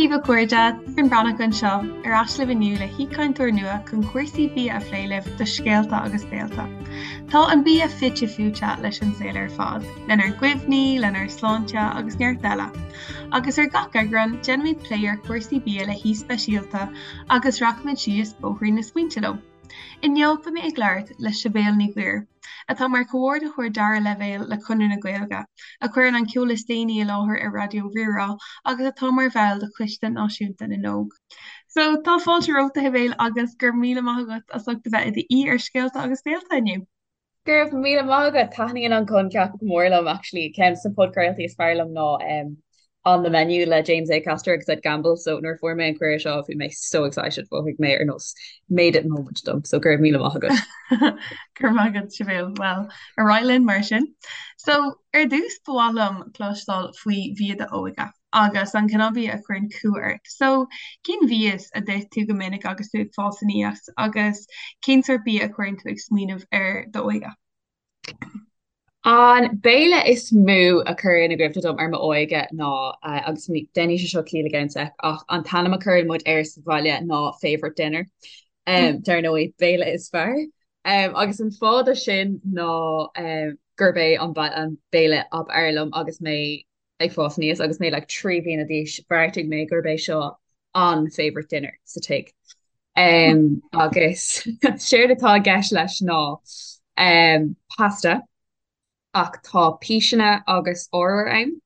daoibh a chairde, Doireann Breathnach anseo, ar ais libh inniu le haoichainteoir nua chun cúrsaí bia a phlé libh do Scéalta agus Béalta. Tá an bia fite fuaite leis an saol ar fad, lenár gcuimhní, lenár sláinte agus neart eile. Agus ar gach eagrán, déanfaimid plé ar chúrsaí bia le haoi speisialta agus rachaimid síos bóithrín na smaointe leo. Inniu beidh mé ag labhairt le Sibéal Ní Ghuairim, atá mar Chomhordaitheoir Dara Leibhéal le Conradh na Gaeilge, a chuireann an ceol is déanaí i láthair ar Raidió Rí-Rá agus atá mar bhall de Choiste Náisiúnta na nÓg. So, tá fáilte romhat a Shibéal agus go raibh míle maith agat as ucht a bheith i d'aoi ar Scéalta agus Béalta inniu. Go raibh míle maith agat. Taitníonn an coincheap go mór liom actually. Ceann de na podchraoltaí is fearr liom ná On the Menu le James Acaster agus Ed Gamble so nuair a fuair mé an cuireadh seo bhí mé so excited mhothaigh mé ar nós made it moment dom so go raibh míle maith agat. Go raibh maith agat Sibéal. Well, ar aghaidh linn mar sin. So, ar dtús ba mhaith liom cloisteáil faoi bhia d'óige. agus an cineál bia a chuireann cumha ort. So, cén mhias a d'ith tú go minic agus tú ag fás aníos agus cén sórt bia a chuireann tú ag smaoineamh ar d'óige? An béile is mó a chuireann i gcuimhne dom ar m'óige ná, agus déanfaidh sé seo ciall i gceann sec, ach an t-ainm a chuireann muid air sa bhaile ná favourite dinner. Dar ndóigh, béile is fearr. Agus an fáth do sin ná gurb é an béile ab fhearr liom agus mé ag fás aníos agus mé like 3 bliana d'aois, bheartaigh mé gurb é seo an favourite dinner sa tigh. Um, agus séard atá i gceist leis ná um, pasta ach tá píseanna agus arbhar ann.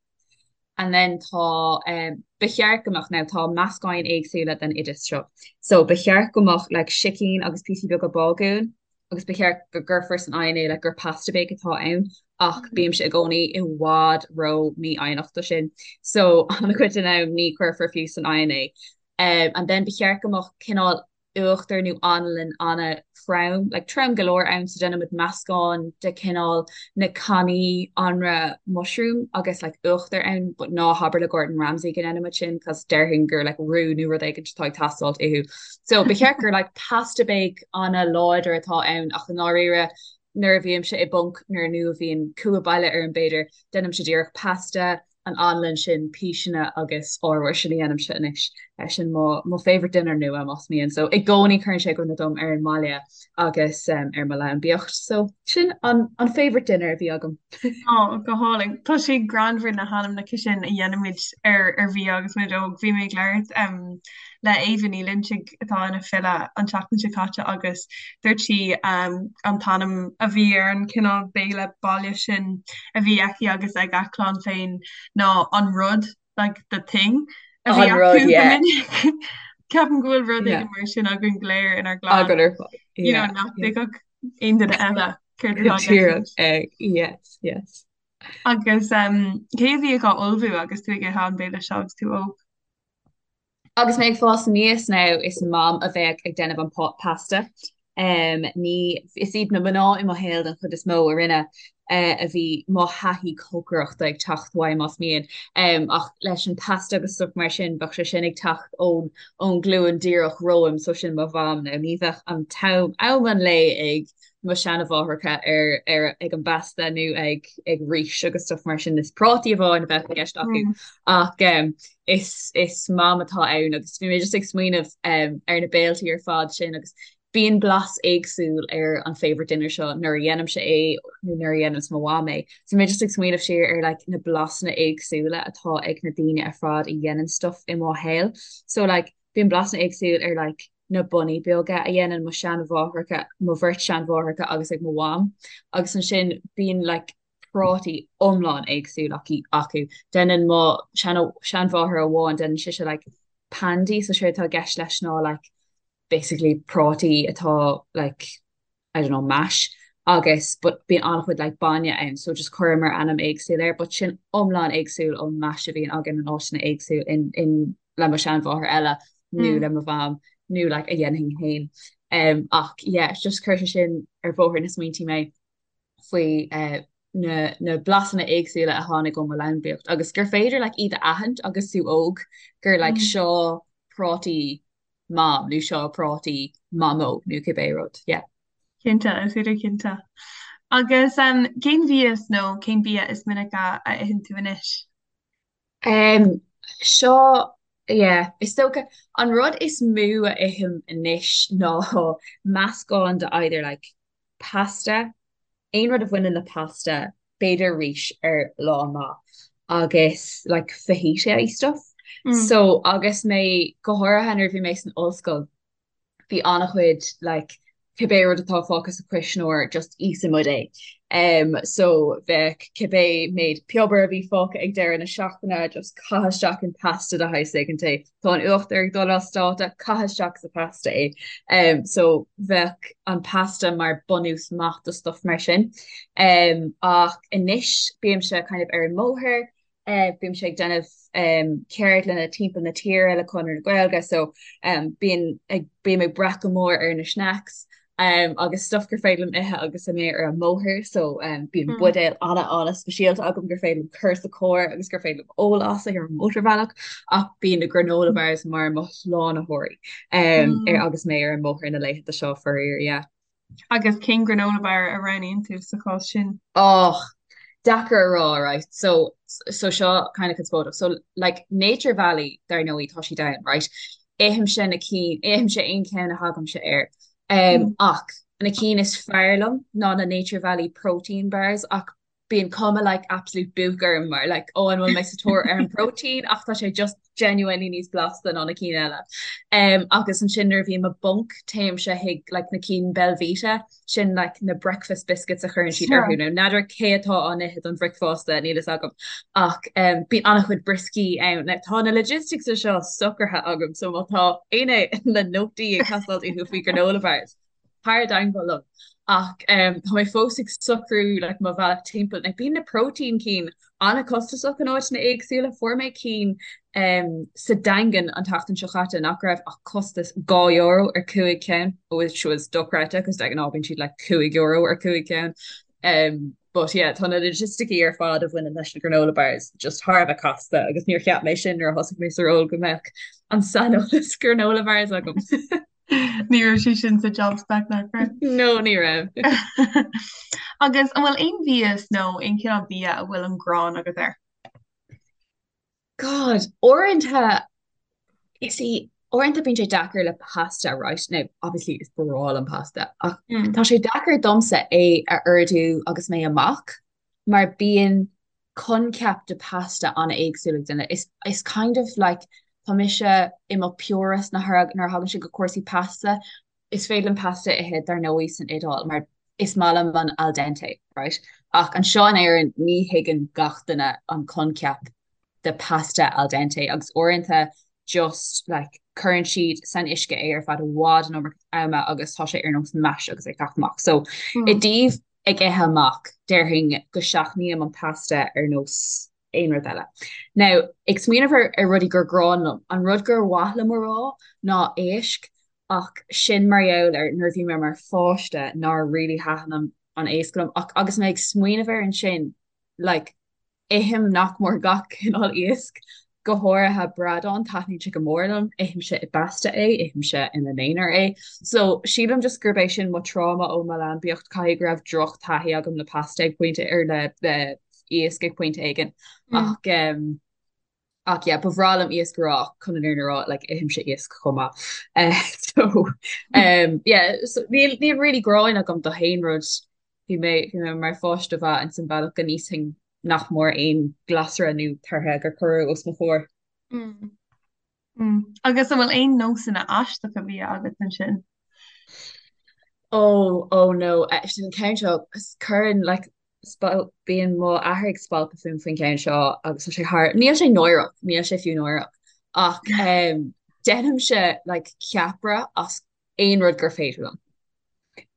And then tá um, ba cheart go mbeadh now tá meascáin éagsúla den oideas seo. So ba cheart go mbeadh like sicín agus píosaí beaga bágúin agus ba cheart go gcuirfear san oigheann é like gur pasta bake atá ann ach bímse i gcónaí i bhfad ró mífhoighneach do sin so an-chuid den am ní chuirfear fiú san oigheann é. Um, and then ba cheart go mbeadh cineál uachtar nó anlann an-trom, like trom go leor ann so déanaimid meascán de cineál na cannaí anraith mushroom agus like uachtar ann but ná habair le Gordon Ramsay go ndéanaimid sin cos déarfainn gur like roux nó rud éigin atá ag teastáilt uathu. So ba cheart gur like pasta bake an-láidir atá ann ach i ndáiríre nuair a bhímse i bponc nuair nó a bhíonn cumha baile orm b'fhéidir, déanaimse díreach pasta, an anlann sin, píseanna agus arbhar, sin a dhéanaimse anois. Sin mo mo favourite dinner nua más mian. So i gcónaí cuireann sé i gcuimhne dom ar an mbaile agus ar mo leanbaíocht. So sin an an favourite dinner a bhí agam. Ó, go hálainn. Tá sé greannmhar na hainmneacha sin a dhéanaimid ar ar bhia agus muid óg. Bhí mé ag labhairt le Éabha Ní Loinsigh atá ina file an tseachtain seo caite agus dúirt sí an t-ainm a bhí ar an chineál béile baile sin a bhí aici agus ag a clann féin ná an rud, like the thing, a bhí An rud, acu go yeah. minic. Ceapaim go bhfuil rud Yeah. éigin mar sin againn go léir inár gclann, Againn ar fad. you know, Yeah, nach yeah. dtuigfeadh aon duine eile céard atá i gceist Díreach, leis. eh, yes, yes. Agus um, cé a bhíodh á ullmhú agus tú ag ithe an béile seo agus tú óg? Agus mé ag fás aníos now, is Mam a bheadh ag déanamh an pasta. Ní, is iad na mná i mo shaol den chuid is mó a rinne, a bhí mo thaithí cócaireachta ag teacht uaidh, más mian. Ach leis an pasta agus stuff mar sin, bheadh sé sin ag teacht ón ón ghlúin díreach romham, so sin mo mham now. Ní bheadh an t-am, am an lae ag mo sheanamháithreacha ar ar ag an bpasta nó ag ag rís agus stuff mar sin. Is prátaí amháin a bheadh i gceist acu. Ach is is Mam atá ann agus bhí mé just ag smaoineamh um, ar na béiltí ar fad sin agus bíonn blas éagsúil ar an favourite dinner seo nuair a dhéanaimse é nó nuair a dhéananns mo mham é. So bhí mé just ag smaoineamh siar ar like, na blasanna éagsúla atá ag na daoine ar fad a dhéanann stuff i mo shaol. So like, bíonn blasanna éagsúil ar like, na bonnaí beaga a dhéanann mo sheanmháithreacha, mo bheirt seanmháithreacha agus ag mo mham agus ansin bíonn like, prátaí iomlán éagsúil acu. Déanann mo seanmháthair amháin, déanann sise like pandy, so séard atá i gceist leis ná like basically prátaí atá like I don't know mash agus but bíonn an-chuid like bainne ann so just chuireamar ainm éagsúil air but sin iomlán éagsúil ón mash a bhíonn againn in áiteanna éagsúil in in le mo sheanmháthair eile nó le mo mham nó like a dhéanfainn féin. Um, ach yeah, just chuir sé sin ar bhóthar na smaointe mé. faoi na na blasanna éagsúla a tháinig ó mo leanbaíocht agus gur féidir like iad a aithint agus tú óg gur like seo prátaí mam nó seo prátaí mamó nó cibé rud, yeah. Cinnte, is féidir cinnte. Agus um, cén mhias nó cén bia is minice a itheann tú anois? Um, seo. Yeah, is dócha an rud is mó a ithim anois ná meascán de either like pasta, aon rud a bhaineann le pasta, b'fhéidir rís ar lá maith agus like fajita stuff. So agus mé go háirithe nuair a bhí mé san ollscoil, bhí an-chuid like cibé rud atá fágtha sa chuisneoir just íosfaidh muid é. Um, so bheadh cibé méid piobar a bhí fágtha ag deireadh na seachtaine just caith isteach in pasta de shaghas éigin é. Tá an uachtar ag dul as dáta, caith isteach sa pasta é. Um, so bheadh an pasta mar bunús maith do stuff mar sin. Um, ach anois bímse kind of ar an mbóthar, Bímse ag déanamh ceardlanna timpeall na tíre le Conradh na Gaeilge so bíonn ag bím ag brath go mór ar na snacks agus stuff gur féidir liom ithe agus mé ar an mbóthar so bíonn buidéal an-an-speisialta agam gur féidir liom cur sa charr agus gur féidir liom ól as ar an mótarbhealach ach bíonn na granola bars mar mo shlánaitheoirí ar agus mé ar an mbóthar na laethanta seo faraor, yeah. Agus cén granola bar a roghnaíonn tú sa chás sin? Och, deacair a rá, right? So, so seo kind of conspóideach. So, like, Nature Valley, dar ndóigh, tá siad ann, right? Ithimse na cinn, ithimse aon cheann a thagaimse air. Um, ach na cinn is fearr liom ná na Nature Valley protein bars ach bíonn cuma like absolute book orm mar like ó an bhfuil mé sa tóir ar an protein ach tá sé just genuinely níos blasta ná na cinn eile. Um, agus ansin nuair a bhím i bponc téimse chuig like na cinn Belvita sin like na breakfast biscuits a chuireann siad orthu nó n'fheadar cé atá á n-ithe don bhricfeasta níl fhios agam ach um, bíonn an-chuid brioscaí ann. Now, tá na logistics seo socraithe agam so má tá éinne le nótaí ag teastáil uathu faoi granola bars tar i dteagmháil liom ach tá mé fós ag socrú like mo bhealach timpeall. Like bíonn na protein cinn an-chostasach in áiteanna éagsúla. Fuair mé cinn um, sa Daingean an tseachtain seo chaite nach raibh ach costas €2 ar 5 ceann, which was dochreidte cos de ghnáth bíonn siad like €5 ar 5 ceann. Um, but yeah, tá na logisticí ar fad a bhaineann leis na granola bars just thar a bheith casta agus níor cheap mé sin nuair a thosaigh mé sa ról go mbeadh an saineolas granola bars agam. Ní raibh sé sin sa job spec nach raibh? No, ní raibh. Agus an bhfuil aon mhias nó aon chineál bia a bhfuil an ghráin agat air? God, uaireanta is í uaireanta bíonn sé deacair le pasta, right? Now, obviously is breá liom pasta, ach mm. tá sé deacair domsa é a ordú agus mé amach mar bíonn coincheap de pasta an-éagsúil ag duine. Is is kind of like tá mise i mo purist nuair a thagann sé go cúrsaí pasta. Is féidir liom pasta a ithe dar ndóigh san Iodáil mar is maith liom an al dente, right? Ach anseo in Éirinn ní thuigeann gach duine an coincheap de pasta al dente agus uaireanta just like cuireann siad san uisce é ar feadh i bhfad an iomarca ama agus tá sé ar nós mash agus é ag teacht amach. So i dtaobh ag ithe amach, déarfainn go seachnaím an pasta ar nós aon rud eile. Now, ag smaoineamh ar ar rudaí gur gráin liom, an rud gur mhaith liom a rá ná éisc, ach sin mar gheall ar nuair a bhí mé mar pháiste nár really thaitin an an éasc liom, ach agus mé ag smaoineamh air ansin, like, Ithim nach mór gach cineál iasc, go háirithe bradán, taitníonn sé go mór liom, ithimse i bpasta é, ithimse ina n-aonar é. So, sílim just gurb é sin mo tráma ó mo leanbaíocht, caithfidh go raibh droch-taithí agam le pasta ag pointe, ar le le iasc ag pointe éigin. Ach um, ach yeah, ba bhreá liom iasc a rá ach chun an fhírinne a rá, like, ithimse iasc chomh maith. Uh, so, um, yeah, so níl, níl really gráin agam do haon rud Bhí mé, bhí mé mar pháiste mhaith ins an bhealach go n-íosfainn nach mór aon ghlasra nó tortha gur cuireadh os mo chomhair. Mm. Mm. Agus an bhfuil aon nósanna aisteacha bia agat ansin? Oh, oh no, eh, sin an ceann seo, cuireann, like, spal, bíonn mo athair ag spalpadh fúm faoin gceann seo agus tá sé thar, níl sé náireach, níl sé fiú náireach, ach um, déanaimse, like, ceapaire as aon rud gur féidir liom.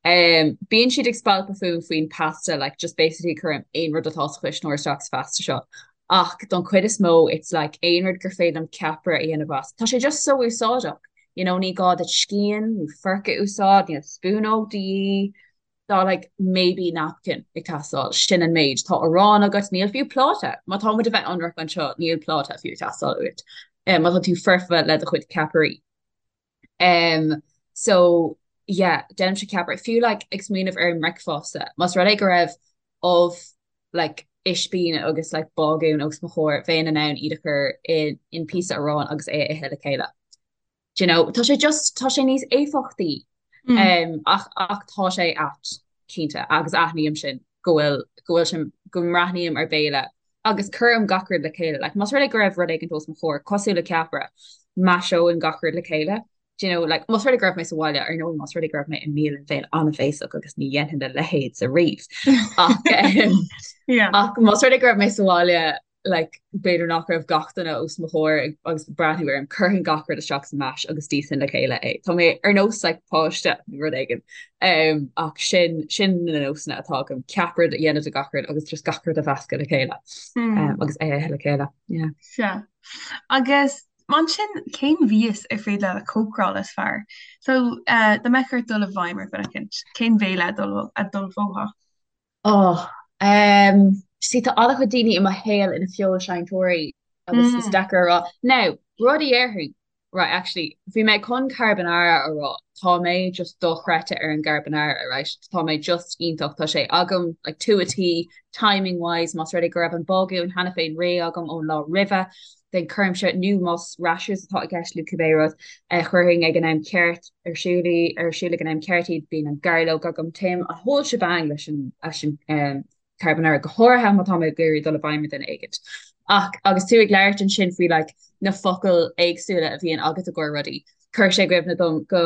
Um, bíonn siad ag spalpadh fúm faoin pasta, like, just basically cuirim aon rud atá sa chuisneoir isteach sa phasta seo. Ach don chuid is mó, it's like aon rud gur féidir liom ceapaire a dhéanamh as. Tá sé just so úsáideach. You know, ní gá duit scian nó forc a úsáid, níl spúnóg de dhíth. Tá like maybe napkin ag teastáil, sin an méid. Tá arán agat, níl fiú pláta. Má tá muid a bheith ionraic anseo, níl pláta fiú ag teastáil uait. Um, má tá tú foirfe le do chuid ceapairí. Um, so yeah, déanaimse ceapaire. Fiú like ag smaoineamh ar an mbricfeasta, más rud é go raibh ubh like ispín agus like bágún os mo chomhair, bheinn in ann iad a chur in in píosa aráin agus é a ithe le chéile. Do you know, tá sé just, tá sé níos éifeachtaí um, ach, ach tá sé ait, cinnte, agus aithním sin go bhfuil, go bhfuil sin, go mbreathnaím ar béile agus cuirim gach rud le chéile. Like, más rud é go raibh rud éigin os mo chomhair, cosúil le ceapaire, maiseoinn gach rud le chéile. Do you know, like, más rud é go raibh mé sa bhaile, ar ndóigh, más rud é go raibh mé i mbialann bheinn an-bhéasach agus ní dhéanfainn a leithéid ariamh. Ach, um, Yeah. ach más rud é go raibh mé sa bhaile, like, b'fhéidir nach raibh gach duine os mo chomhair ag, agus ag breathnú orm, chuirfinn gach rud isteach sa mash agus d'íosfainn le chéile é. Tá mé ar nós like, páiste nó rud éigin. Um, ach sin, sin na nósanna atá agam, ceapaire a dhéanamh de gach rud agus just gach rud a mheascadh le chéile. Mm. Um, agus é a ithe le chéile. Yeah. Sea. Agus Mar sin, cén mhias ar féidir leat a chócaráil is fearr? So, dá mbeadh ort dul i bhfeidhm ar dhuine eicínt, cén bhéile a d'ullmhófá? Oh, um, see, tá an-chuid daoine i mo shaol ina feoilséantóirí agus is deacair a rá. Now, rud a dhéarfainn, right, actually, bhí mé chun carbonara a rá, tá mé just dochreidte ar an gcarbonara, right, tá mé just iontach, tá sé agam, like, to a T, timing wise, más rud é go raibh an bágún cheana féin réidh agam ón lá roimhe, then cuirimse, nó más rashers atá i gceist nó cibé rud, chuirfinn ag an am ceart ar siúl í, ar siúl ag an am ceart iad, bíonn an gairleog agam, téim an whole shebang leis an, leis an carbonara, go háirithe má tá mé ag iarraidh dul i bhfeidhm ar dhuine éigint. Ach agus tú ag labhairt ansin faoi like na focail éagsúla a bhíonn agat i gcomhair rudaí, chuir sé i gcuimhne dom go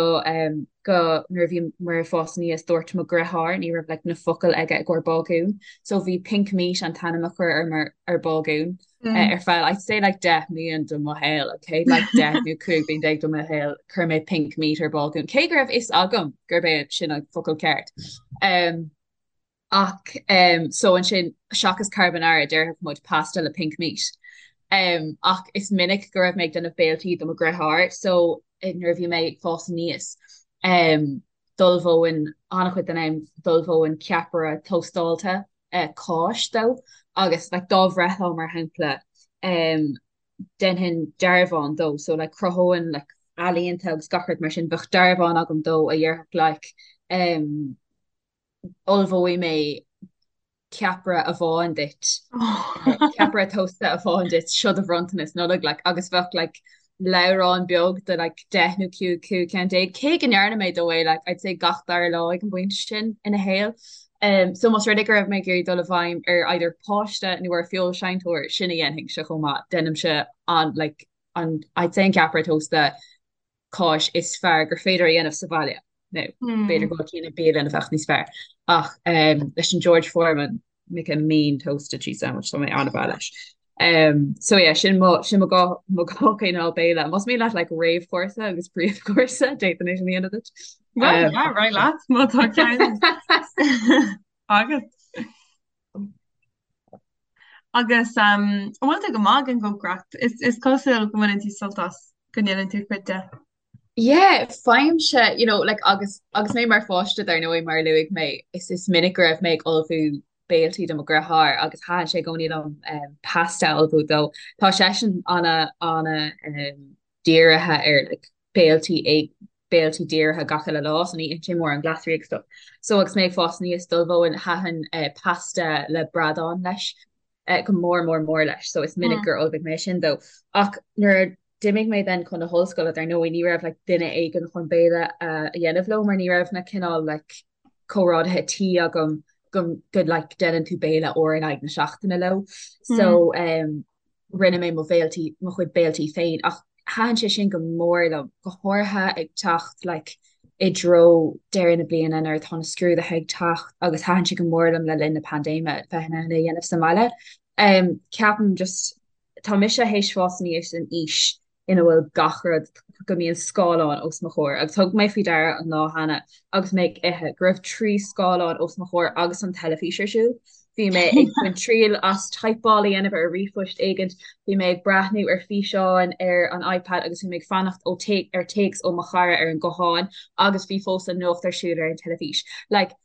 go nuair a bhí mé ag fás aníos dúirt mo dheartháir ní raibh like na focail aige i gcomhair bágún, so bhí pink meat an t-ainm a chuir ar ar bágún. ar feadh I'd say like 10 mbliain de mo shaol, okay? Like 10 nó 15 bliain de mo shaol, chuir mé pink meat ar bágún. Cé go raibh fhios agam gurb é sin an focal ceart. Um, ach um, so ansin seachas carbonara déarfadh muid pasta le pink meat. Um, ach is minic go raibh mé ag déanamh béiltí do mo dheartháir, so eh, nuair a bhí mé ag fás aníos, um, d'ullmhóinn an-chuid den am d'ullmhóinn ceapaire tóstáilte cáis dó agus like dá bhreithlá mar shampla um déanfainn dearbhán dó so like chruthóinn like ealaíonta agus gach rud mar sin bheadh dearbhán agam dó a dhéarfadh like um ullmhóidh mé ceapaire amháin duit ceapaire tósta amháin duit seo do bhronntanas Nollag like agus bheadh like leabhrán beag de like 10 nó 15 15 ceann, cé go ndearna mé dó é like I'd say gach dara lá ag an bpointe sin ina shaol. Um, so más rud é go raibh mé ag iarraidh dul i bhfeidhm ar either páiste nó ar feoilséantóir sin a dhéanfainnse chomh maith, déanaimse an like an I'd say an ceapaire tósta cáis is fearr gur féidir a dhéanamh sa bhaile. Nó b'fhéidir go bhfuil cinn i bialann a bheadh níos fearr. Ach um, leis an George Foreman make a mean toasted cheese sandwich tá mé an-bhreá leis. Um, so yeah, sin mo sin mo dhá mo dhá chineál béile. Más mian leat like réamhchúrsa agus príomhchúrsa d'fhéadfainn é sin a dhéanamh duit. Well, Um, yeah, right leat má tá ceann agat. Agus um, an bhfuil tú go maith ag an gcócaireacht? Is, is cosúil go mbaineann tú sult as go ndéanann tú cuid de. Yeah, faighimse, you know, like agus agus mé mar pháiste dar ndóigh mar a luaigh mé, is is minic go raibh mé ag ullmhú béiltí do mo dheartháir agus thaitin sé i gcónaí liom um, pasta a ullmhú dó. Tá seisean ana ana um, dírithe ar like, béiltí ag béiltí dírithe gach uile lá, so ní itheann sé mórán glasraí agus stuff. So agus mé ag fás aníos d'ullmhóinn thaitin uh, pasta le bradán leis uh, go mór mór mór leis, so is minic gur ullmhaigh mé sin dó. Ach nuair a d'imigh mé then chun na hollscoile dar ndóigh ní raibh like duine éigin chun béile a dhéanamh leo mar ní raibh na cineál like comrádaithe tí agam go go like déanann tú béile uair in aghaidh na seachtaine leo. So um, rinne mé mo bhéiltí mo chuid béiltí féin ach thaitin sé sin go mór liom, go háirithe ag teacht like i dtreo deireadh na bliana nuair atá na scrúduithe ag teacht agus thaitin sé go mór liom le linn na paindéime bheith in ann é a dhéanamh sa mbaile. Um, ceapaim just Tá mise théis fás aníos in aois ina bhfuil gach rud, go mbíonn scáileán os mo chomhair agus thug mé faoi deara an lá cheana agus mé ag ithe go raibh 3 scáileán os mo chomhair agus an teilifís ar siúl. Bhí mé ag baint triail as typeáil a dhéanamh ar ríomhphost éigint, bhí mé ag breathnú ar físeáin ar an iPad agus bhí mé ag fanacht ó ar téacs ó mo chara ar an guthán agus bhí fós an nuacht ar siúl ar an teilifís. Like,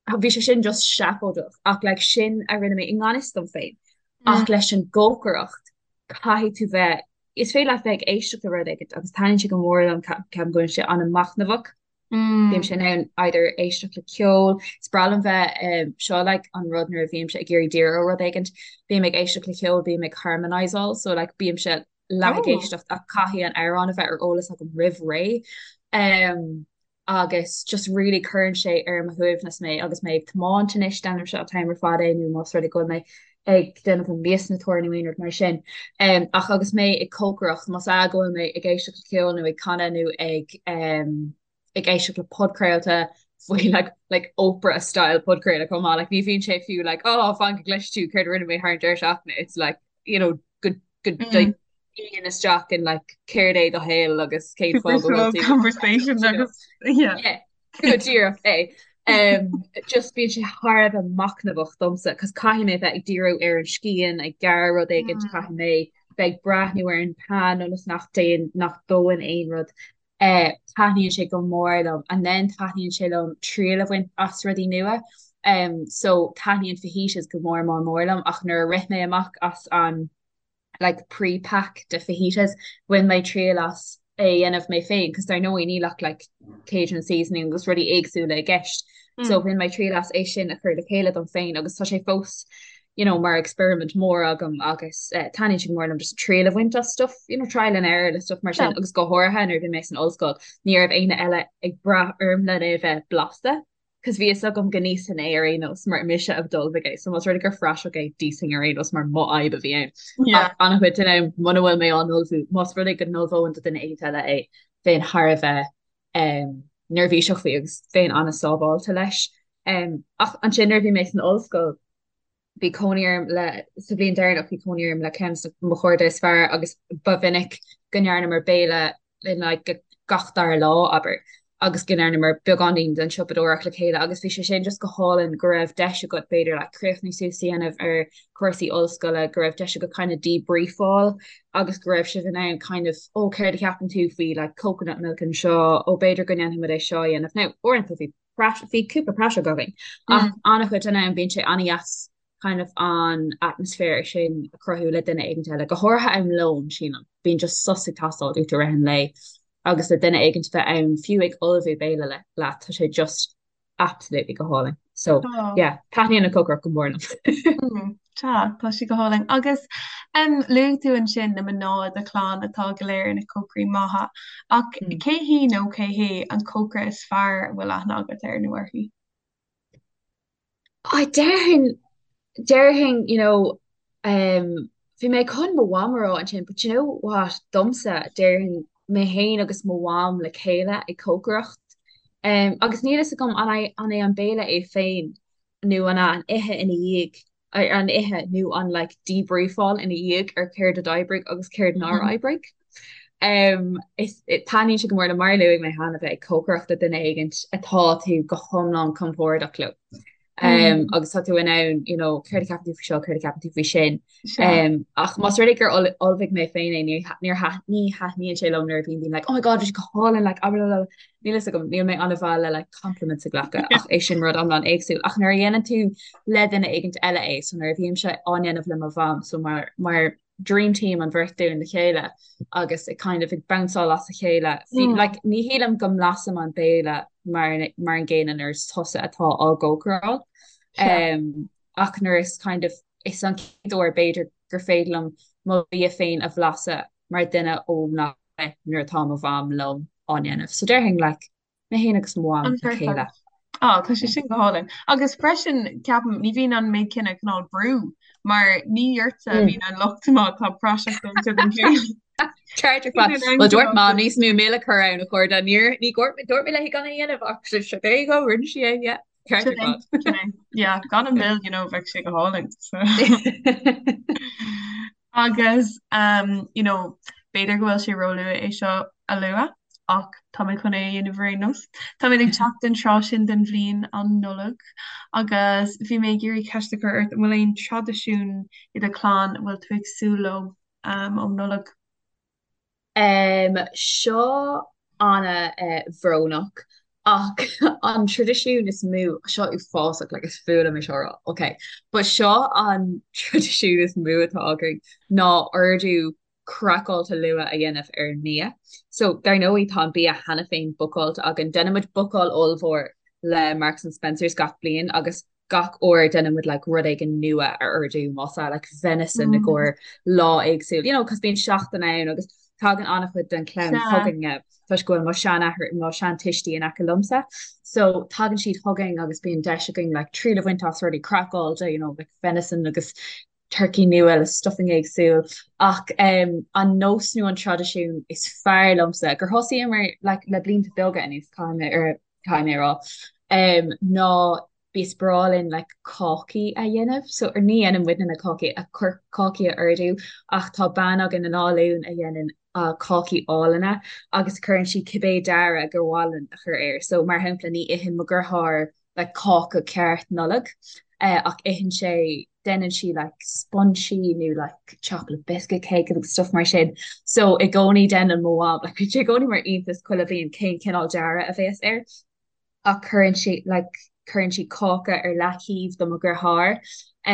bhí sé sin just seafóideach ach like sin a rinne mé i ngan fhios dom féin. Ach leis an gcócaireacht caithfidh tú bheith, is féidir leat bheith ag éisteacht le rud éigin agus taitníonn sé go mór liom ceapaim go bhfuil sé an-machnamhach. Bímse in ann either éisteacht le ceol, is breá liom bheith, seo like an rud nuair a bhímse ag iarraidh díriú ar rud éigint, bím ag éisteacht le ceol, bím ag harmonizeáil, so like bímse leath ag éisteacht ach caithfidh an amhrán a bheith ar eolas agam roimh ré. Um, agus just really cuireann sé ar mo shuaimhneas mé agus mé ag tiomáint anois, déanaimse an t-am ar fad é nó más rud é go bhfuil mé ag déanamh an mias na tóir nó aon rud mar sin. Um, ach agus mé ag cócaireacht, más ea go bhfuil mé ag éisteacht le ceol nó ag canadh nó ag um, ag éisteacht le podchraolta faoi like, like Oprah style podchraoladh chomh maith, like, ní bhíonn sé fiú like, oh, fan go gcloisfidh tú céard a rinne mé thar an deireadh seachtaine, it's like, you know, go go mm. dtéann isteach in like céard é do shaol agus cén fáth go bhfuil tú conversation agus yeah. Yeah, go díreach é. Um, just bíonn sé thar a bheith machnamhach domsa, cos caithfidh mé bheith ag díriú ar an scian, ag gearradh rud éigin, mm. caithfidh mé bheith ag breathnú ar an pan ionas nach dtéann nach dóann aon rud. Eh, taitníonn sé go mór liom and then taitníonn sé liom triail a bhaint as rudaí nua. Um, so taitníonn fajitas go mór mór mór liom ach nuair a rith mé amach as an like pre-pack de fajitas bhain mé triail as é a dhéanamh mé féin cos dar ndóigh níl ach like Cajun seasoning agus rudaí éagsúla i gceist. So bhain mé triail as é sin a chur le chéile dom féin agus tá sé fós you know, mar experiment mór agam agus eh, taitníonn sé go mór liom just triail a bhaint as stuff, you know, trial and error le stuff mar sin Yeah. agus go háirithe nuair a bhí mé san ollscoil ní raibh éinne eile ag brath orm lena é bheith blasta cos bhí fhios agam go n-íosfainn é ar aon nós mar mise a d'ullmhaigh é so más rud é gur phraiseach é d'íosfainn ar aon nós mar mo fhadhb a bhí ann. Yeah. Ach an-chuid den am muna bhfuil mé á n-ullmhú más rud é go n-ullmhóinn do duine éigin eile é bheinn thar a bheith um, neirbhíseach faoi agus bheinn an-sábháilte leis. Um, ach ansin nuair a bhí mé san ollscoil bhí cónaí orm le, sa bhliain deireanach bhí cónaí orm le ceann de mo chairde is fearr agus ba mhinic go ndearnamar béile in like gach dara lá, abair, agus go ndearnamar beagáinín den siopadóireacht le chéile agus bhí sé sin just go hálainn go raibh deis agat b'fhéidir like críochnú suas a dhéanamh ar chúrsaí ollscoile, go raibh deis agat kind of debriefáil agus go raibh sibh in ann kind of ó céard a cheapann tú faoi like coconut milk anseo, ó b'fhéidir go ndéanfaimid é seo a dhéanamh. Now uaireanta bhí bhí cúpla praiseach againn ach an-chuid den am bíonn sé an-dheas kind of an atmaisféar sin a chruthú le duine éigin eile, go háirithe am lóin, sílim. Bíonn just sos ag teastáil uait i rith an lae agus le duine éigin bheith ann fiú ag ullmhú béile le leat, tá sé just absolutely go hálainn. So yeah, taitníonn an cócaireacht go mór liom. Tá, tá sé go hálainn. Agus um, luaigh tú ansin na mná i do chlann atá go léir ina cócairí maithe, ach mm. cé hí nó cé hé an cócaire is fearr a bhfuil aithne agat air nó uirthi? I déarfainn déarfainn you know um, bhí mé chun mo mham a rá ansin, but you know what, domsa déarfainn mé féin agus mo mham le chéile ag cócaireacht. Um, agus níl fhios agam an é an é an béile é féin nó an an ithe ina dhiaidh, an ithe nó an like debriefáil ina dhiaidh ar céard a d'oibrigh agus céard nár mm-hmm. oibrigh. Um, is taitníonn sé go mór liom mar a luaigh mé cheana bheith ag cócaireacht le duine éigint atá tú go hiomlán compordach leo. Um, mm. agus tá tú in ann you know, céard a cheapann tú faoi seo, céard a cheapann tú faoi sin. Um, ach más rud é gur ullmhaigh mé féin é ní ní thaitníonn sé liom nuair a bhíonn daoine like, oh my god, bhí sé go hálainn like, ah, blah, blah, blah. Níl fhios agam, níl mé an-mhaith le like compliments a ghlacadh ach é sin rud iomlán éagsúil. Ach nuair a dhéanann tú le duine éigint eile é, so nuair a bhímse á ndéanamh le mo mham, so mar mar dream team an bheirt dúinn le chéile agus ag kind of ag bounceáil as a chéile. Mm. Like, ní shílim go mblasaim an béile mar mar an gcéanna nuair is tusa atá á gcócaráil. Um, ach nuair is kind of is an chéad uair b'fhéidir gur féidir liom mo bhia féin a bhlaiseadh mar duine ó nach nuair atá mo mham liom á ndéanamh. So déarfainn like, mé féin agus mo mham le chéile. Á, tá sé sin go hálainn. Agus freisin, ceapaim, ní bhíonn an méid céanna cineál brú, mar ní ortsa a bhíonn an locht má tá praiseach déanta den bhéile. Ceart ar fad. Well dúirt Mam níos mó mil a chur ann a chairde. Níor ní dúirt dúirt mé léi gan é a dhéanamh ach sure there you go, rinne sí é, yeah. Ceart ar fad. Sin é. Yeah, gan an mil, you know, bheadh sé go hálainn. So. Agus, you know, b'fhéidir go bhfuil sé róluath é seo a lua, ach tá mé chun é a dhéanamh ar aon nós. Táimid ag teacht don tráth sin den bhliain, an Nollaig, agus bhí mé ag iarraidh ceist a chur ort, an bhfuil aon traidisiún i do chlann a bhfuil tú ag súil leo um Nollaig? Um, seo ana-bhrónach ach an traidisiún is mó, seo uafásach, like is fuath liom é seo a rá, ok, but seo an traidisiún is mó atá againn ná ordú. craiceáilte luath a dhéanamh ar an mbia. So, dar ndóigh, tá an bia cheana féin bookáilte againn. Déanann muid bookáil ollmhór le Marks and Spencers gach bliain agus gach uair déanann muid like rud éigin nua a ordú más ea like venison i gcomhair lá éagsúil, you know, cos bíonn seachtain ann agus tagann an-chuid den chlann chugainne toisc go bhfuil mo sheanathair, mo sheantuistí in aice liomsa. So tagann siad chugainn agus bíonn deis againn like triail a bhaint as rudaí craiceáilte, you know, like venison agus turcaí nua le stuffing éagsúil ach um, an nós nó an traidisiún is fearr liomsa gur thosaíomar like, le blianta beaga anuas caithfidh mé ar caithfidh mé a rá um, ná is breá linn like, cácaí a dhéanamh so ar ní dhéanann muidne na cácaí a chur cácaí a ordú ach tá bean againn in Áth Luain a dhéanann uh, cácaí álainne agus cuireann sí cibé dearadh gur mhaith linn a chur air so mar shampla ní itheann mo dheartháir like cáca ceart Nollag ach itheann sé, déanann sí like sponsí nó like chocolate biscuit cake agus stuff mar sin. So i gcónaí déanann mo mham, like bíonn sé i gcónaí mar iontas chuile bhliain cén cineál dearadh a bhéas air ach cuireann sí like cuireann sí cáca ar leataobh do mo dheartháir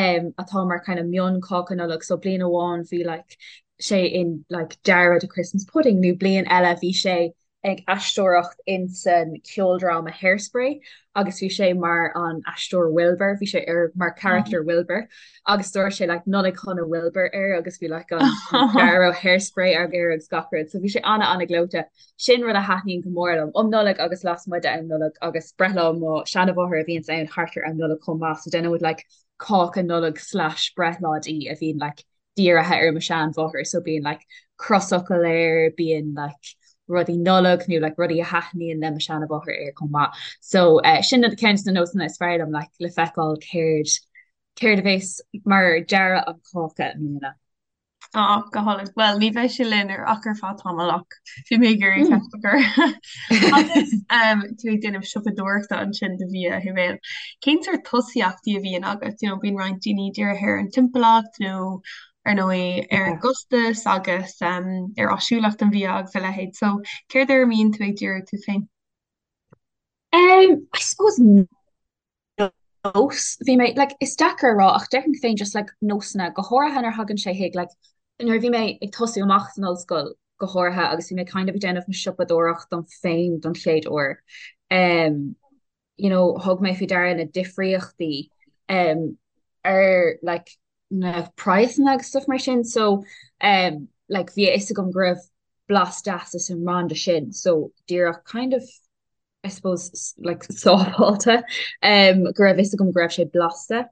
um atá mar kind of mion cáca Nollag so bliain amháin bhí like sé in like dearadh de Christmas pudding nó bliain eile bhí sé ag aisteoireacht insan ceoldráma Hairspray agus bhí sé mar an aisteoir Wilbur, bhí sé ar mar character Wilbur agus dúirt sé like Nollaig Shona Wilbur air agus bhí like an dearadh Hairspray air agus gach rud, so bhí sé ana ana gleoite. Sin rud a thaitníonn go mór liom um Nollaig agus lasmuigh de am Nollag agus breithlá mo seanamháthar a bhíonns ann thart ar am Nollag chomh maith so déanann muid like cáca Nollag slash breithlá di a bhíonn like dírithe ar mo sheanmháthair so bíonn like crosfhocal air, bíonn like rudaí Nollag nó like rudaí a thaitníonn le mo sheanmháthair air chomh maith. So eh, sin ceann de na nósanna is fearr liom like le feiceáil céard céard a bheas mar dearadh an cáca i mbliana. Á, go hálainn. Bhuel, ní bheidh sé linn ar ach ar feadh tamaill ach bhí mé ag iarraidh ceist a chur. Agus um, tú ag déanamh siopadóireachta ansin do bhia a Shibéal. Cén sórt tosaíochtaí a bhíonn agat? You know, bíonn roinnt daoine dírithe ar an timpeallacht nó ar ndóigh ar an gcostas agus um, ar áisiúlacht an bhia agus a leithéid. So céard ar a mbíonn tú ag díriú tú féin? Um, I suppose nós, bhí mé, like, is deacair a rá ach déarfainn féin just like nósanna, go háirithe nuair a thagann sé chuig like nuair a bhí mé ag tosú amach san ollscoil go háirithe agus bhí mé kind of ag déanamh mo siopadóireacht dom féin don chéad uair. Um, you know, thug mé faoi deara na difríochtaí um, ar like, na praghsanna agus stuff mar sin so um, like, bhí a fhios agam go raibh blas deas as an mbranda sin so díreach kind of I suppose like sábháilte um, go raibh fhios agam go raibh sé blasta.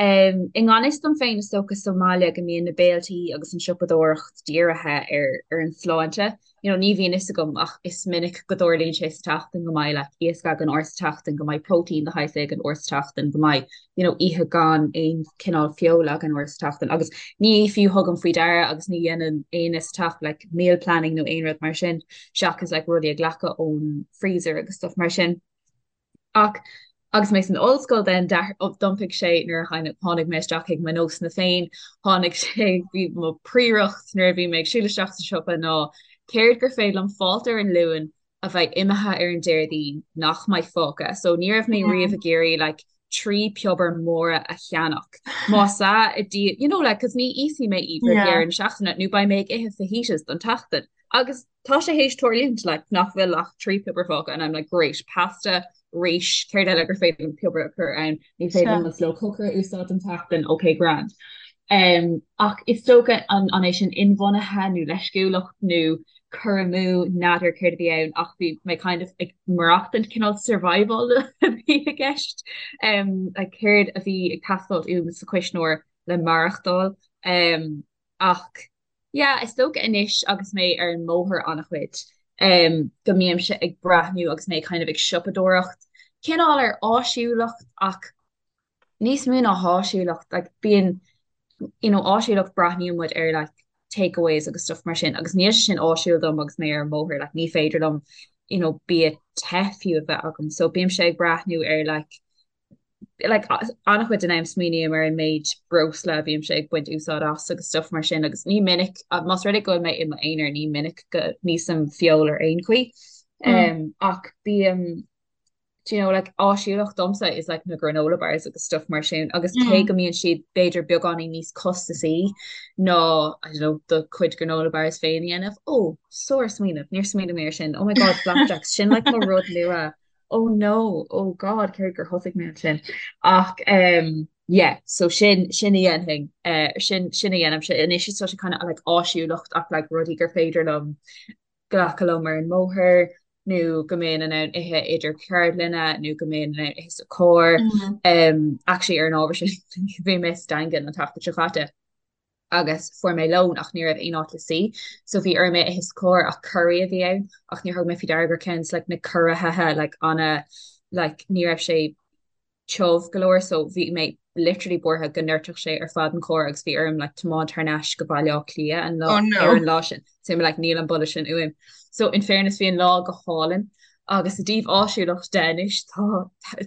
Um, I ngan fhios dom féin is dócha sa mbaile go mbíonn na béiltí agus an siopadóireacht dírithe ar ar an sláinte. You know, ní bhíonn fhios agam ach is minic go dtarlaíonn sé sa tseachtain go mbeidh like iasc againn uair sa tseachtain, go mbeidh próitéin de shaghas éigin uair sa tseachtain, go mbeidh you know, oíche gan aon cineál feola againn uair sa tseachtain agus ní fiú thugaim faoi deara agus ní dhéanann éinne sa teach like meal planning nó aon rud mar sin seachas like rudaí a ghlacadh ón freezer agus stuff mar sin. Ach agus mé san ollscoil then d'iompaigh sé nuair a tháinig mé isteach chuig mo nósanna féin, tháinig sé, bhí mo phríoracht nuair a bhí mé ag siúl isteach sa siopa ná céard gur féidir liom fáilt ar an Luan a bheidh imithe ar an Déardaoin nach mbeidh fágtha. So ní raibh mé riamh ag iarraidh like 3 piobar móra a cheannach. Más ea i dí, you know like 'cause ní íosfaidh mé iad roimh dheireadh na seachtaine nó beidh mé ag ithe fajitas don tseachtain. Agus tá sé théis tarlúint like nach bhfuil ach 3 piobar fágtha and I'm like great, pasta, rís, céard eile gur féidir liom piobar a chur ann, ní féidir liom mo slow cooker a úsáid don tseachtain, ok grand. Um, ach is dócha an, an é sin inbhuanaithe nó leisciúlacht nó cur amú n'fheadar céard a bhí ann ach bhí mé kind of ag maireachtaint cineál survival a bhí i gceist um, like céard a bhí ag teastáil uaim sa chuisneoir le maireachtáil um, ach Yeah, is dócha anois agus mé ar an mbóthar an-chuid, um, go mbímse ag breathnú agus mé kind of ag siopadóireacht, cineál ar áisiúlacht ach níos mó ná háisiúlacht, like bíonn, you know, áisiúlacht breathnaíonn muid ar like takeaways agus stuff mar sin agus níl sé sin áisiúil dom agus mé ar an mbóthar, like ní féidir liom, you know, bia te fiú a bheith agam, so bímse ag breathnú ar like like an-chuid den am smaoiním ar an méid breosla a bhímse ag baint úsáid as agus stuff mar sin agus ní minic, más rud é go bhfuil mé i m'aonar, ní minic go n-íosaim feoil ar aon chaoi. Um, ach bím Do you know, like, áisiúlacht domsa is like na granola bars agus stuff mar sin agus cé go mbíonn siad b'fhéidir beagáinín níos costasaí ná, I don't know, do chuid granola bars féin a dhéanamh. Oh, sár-smaoineamh, níor smaoinigh mé ar sin. Oh my God, flapjacks, sin like mo rud nua. Oh no, oh God, céard gur thosaigh mé ansin. Ach um, yeah, so sin, sin a dhéanfainn, uh, sin, sin a dhéanaimse. Anois is tá sé kind of like áisiúlacht ach like rudaí gur féidir liom glacadh liom ar an mbóthar nó go mbeinn in ann ithe idir ceardlanna nó go mbeinn in ann ithe sa charr. Um, actually ar an ábhar sin bhí mé sa Daingean an tseachtain seo caite agus fuair mé lón ach ní raibh aon áit le suí so bhí orm é a ithe sa charr ach curry a bhí ann ach níor thug mé faoi deara gur ceann like na curaithe like ana like ní raibh sé tiubh go leor so bhí mé literally buartha go ndoirtfeadh sé ar fad an carr agus bhí orm like tiomáint thar n-ais go Baile Átha Cliath an lá Oh no. ar an lá sin. So I'm like níl an boladh sin uaim. So in fairness bhí an lá go hálainn agus i dtaobh áisiúlacht de anois tá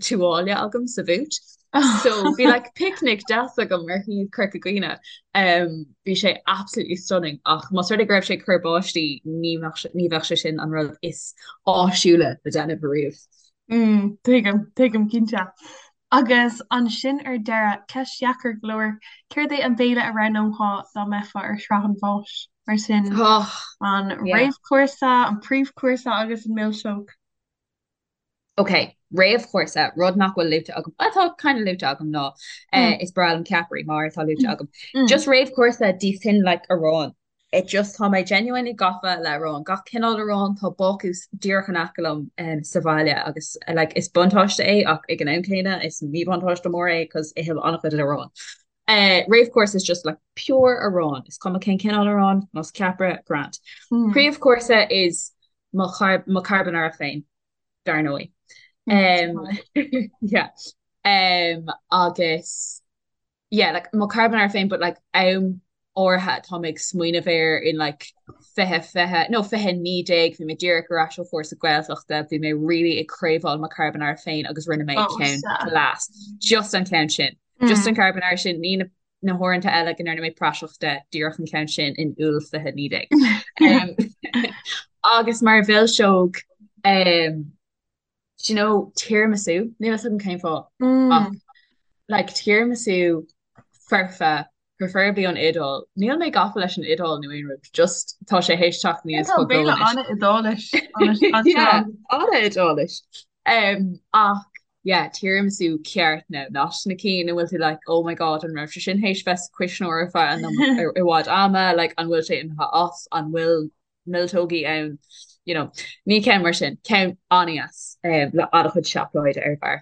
tuáille agam sa bhúit. So bhí like picnic deas agam ar thaobh Corca Dhuibhne. Um, bhí sé absolutely stunning ach más rud é go raibh sé ag cur báistí ní bheadh ní bheadh sé sin an rud is áisiúla le déanamh ariamh. Mm, tuigim, tuigim cinnte. Agus ansin ar deireadh, ceist dheacair go leor, céard é an béile a roghnófá dá mbeifeá ar shraith an bháis? Mar sin, Oh, an yeah. réamhchúrsa, an príomhchúrsa agus an milseog. Ok, réamhchúrsa, rud nach bhfuil luaite agam, atá kind of luaite agam ná Mm. is breá liom ceapairí mar atá luaite agam. Mm. Just réamhchúrsa d'íosfainn like arán. It just, tá mé genuinely gafa le arán, gach cineál aráin, tá bácús díreach in aice liom sa bhaile agus like is buntáiste é ach ag an am céanna is míbhuntáiste mór é cos ithim an-chuid aráin. Réamhchúrsa is just like pure arán, is cuma cén cineál aráin, más ceapaire, grand. Príomhchúrsa is mo mo carbonara féin, dar ndóigh. Yeah. Agus yeah like mo carbonara féin but like am áirithe atá mé ag smaoineamh air in like 2020 nó 2019 bhí mé díreach ar ais ó chúrsa Gaeltachta bhí mé really ag craobháil mo carbonara féin agus rinne mé Oh, ceann sea. class just an ceann sin just Mm. an carbonara sin ní na na huaireanta eile go ndearna mé praiseach de díreach an ceann sin in Iúil 2019 um, agus mar mhilseog um, Do you know, tiramisu, níl a fhios agam cén fáth, ach Mm. like tiramisu foirfe, preferably ón Iodáil. Níl mé gafa leis an Iodáil nó aon rud, just tá sé théis teacht Yeah, aníos tá chomh béile anois. an-Iodáilis anseo Yeah, agus an-Iodáilis. Um, ach yeah, tiramisu ceart now, not na cinn a bhfuil tú like, oh my god, an raibh sé sin théis bheith sa chuisneoir ar feadh an i bhfad ama, like an bhfuil sé imithe as, an bhfuil milseogaí ann, you know, ní ceann mar sin, ceann an-deas le an-chuid seacláide ar bharr.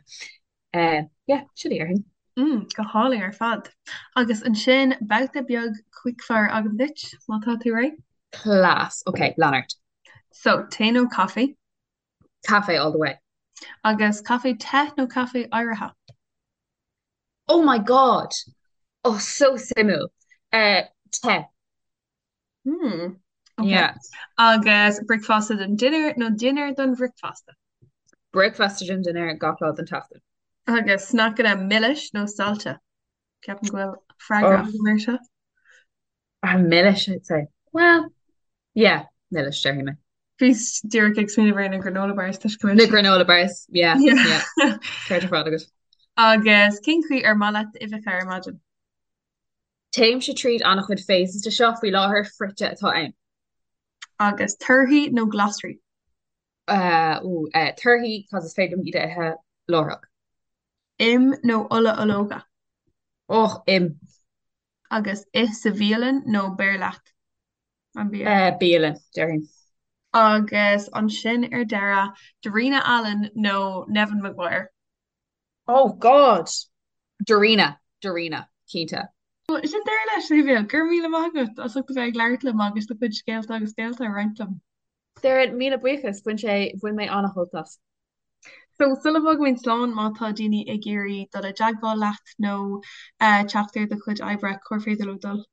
Yeah, sin é déarfainn. Mm, go hálainn ar fad. Agus ansin babhta beag quickfire agam duit, má tá tú réidh? Class. Ok, lean ort. So, tae nó caife? Caife all the way. Agus caife te nó caife oighrithe? Oh my God! Oh, so suimiúil. Uh, te. Hmm. Okay. Yeah. Agus bricfeasta don dinnéar nó dinnéar don bhricfeasta? Bricfeasta don dinnéar gach lá den tseachtain. Agus sneaiceanna milis nó saillte? Ceapaim go bhfuil freagra Oh, agam air seo. ah, milis, I'd say. Well, yeah, milis, déarfaidh mé. Bhíos díreach ag smaoineamh ar na granola bars toisc go bhfuil Na siad. granola bars, yeah, Yeah. yeah. Ceart ar fad agat. Agus cén chaoi ar maith leat d'uibheacha ar maidin? Téimse tríd an-chuid phases de seo, faoi láthair frite atá ann. Agus torthaí nó glasraí? Ooh, torthaí, cos is féidir liom iad a ithe láithreach. Im nó ola ológa? Och, im. Agus ith sa bhialann nó beir leat an bia? Bialann, déarfainn. Agus ansin ar deireadh, Darina Allen nó Neven Maguire? Oh God! Darina, Darina, cinnte. Bhuel, sin deireadh leis, a Shéimhiel. Go raibh míle maith agat as ucht a bheith ag labhairt liom agus do chuid scéalta agus béalta a roinnt liom. Doireann, míle buíochas. Bhain sé, bhain mé an-shult as. So, sula bhfágaimid slán, má tá daoine ag iarraidh dul i dteagmháil leat nó teacht ar do chuid oibre, cár féidir leo dul?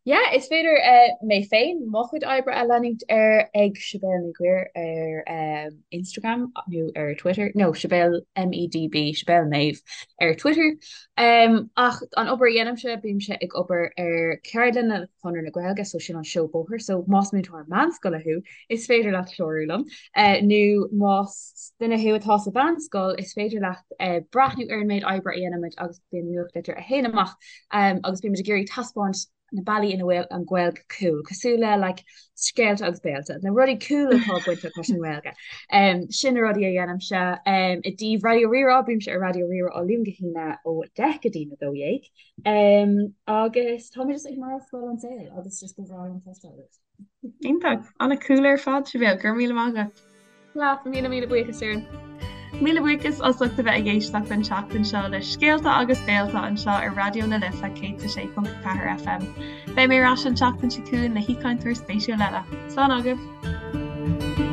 Yeah, is féidir mé féin mo chuid oibre a leanúint ar ag Sibéal Ní Ghuairim ar Instagram nó ar Twitter, nó Sibéal MEDB, Sibéal Méabh ar Twitter. Ach an obair a dhéanaimse, bímse ag obair ar ceardlanna le Conradh na Gaeilge, so sin an seó bóthair, so más múinteoir meánscoile thú, is féidir leat clárú liom, nó más duine thú atá sa mheánscoil, is féidir leat breathnú ar an méid oibre a dhéanaimid agus bíonn nuachtlitir a théann amach agus bímid ag iarraidh taispeáint na bealaí ina bhfuil an Ghaeilge cool, cosúil le like scéalta agus béalta, na rudaí cool atá bainteach leis an nGaeilge. Sin na rudaí a dhéanaimse. I dtaobh Raidió Rí-Rá, bímse ar Raidió Rí-Rá ó Luan go hAoine ó 10 go dtí na 12. Agus tá mé just ag maireachtáil an saol agus just go bhreá liom cloisteáil uait. Iontach! An-cool ar fad, Sibéal. Go raibh míle maith agat. Leat, míle míle buíochas, Doireann. Míle buíochas as ucht a bheith ag éisteacht an tseachtain seo le Scéalta agus Béalta anseo ar Raidió na Life 106.4 FM. Beidh mé ar ais an tseachtain seo chugainn le haoichainteoir spéisiúil eile. Slán agaibh!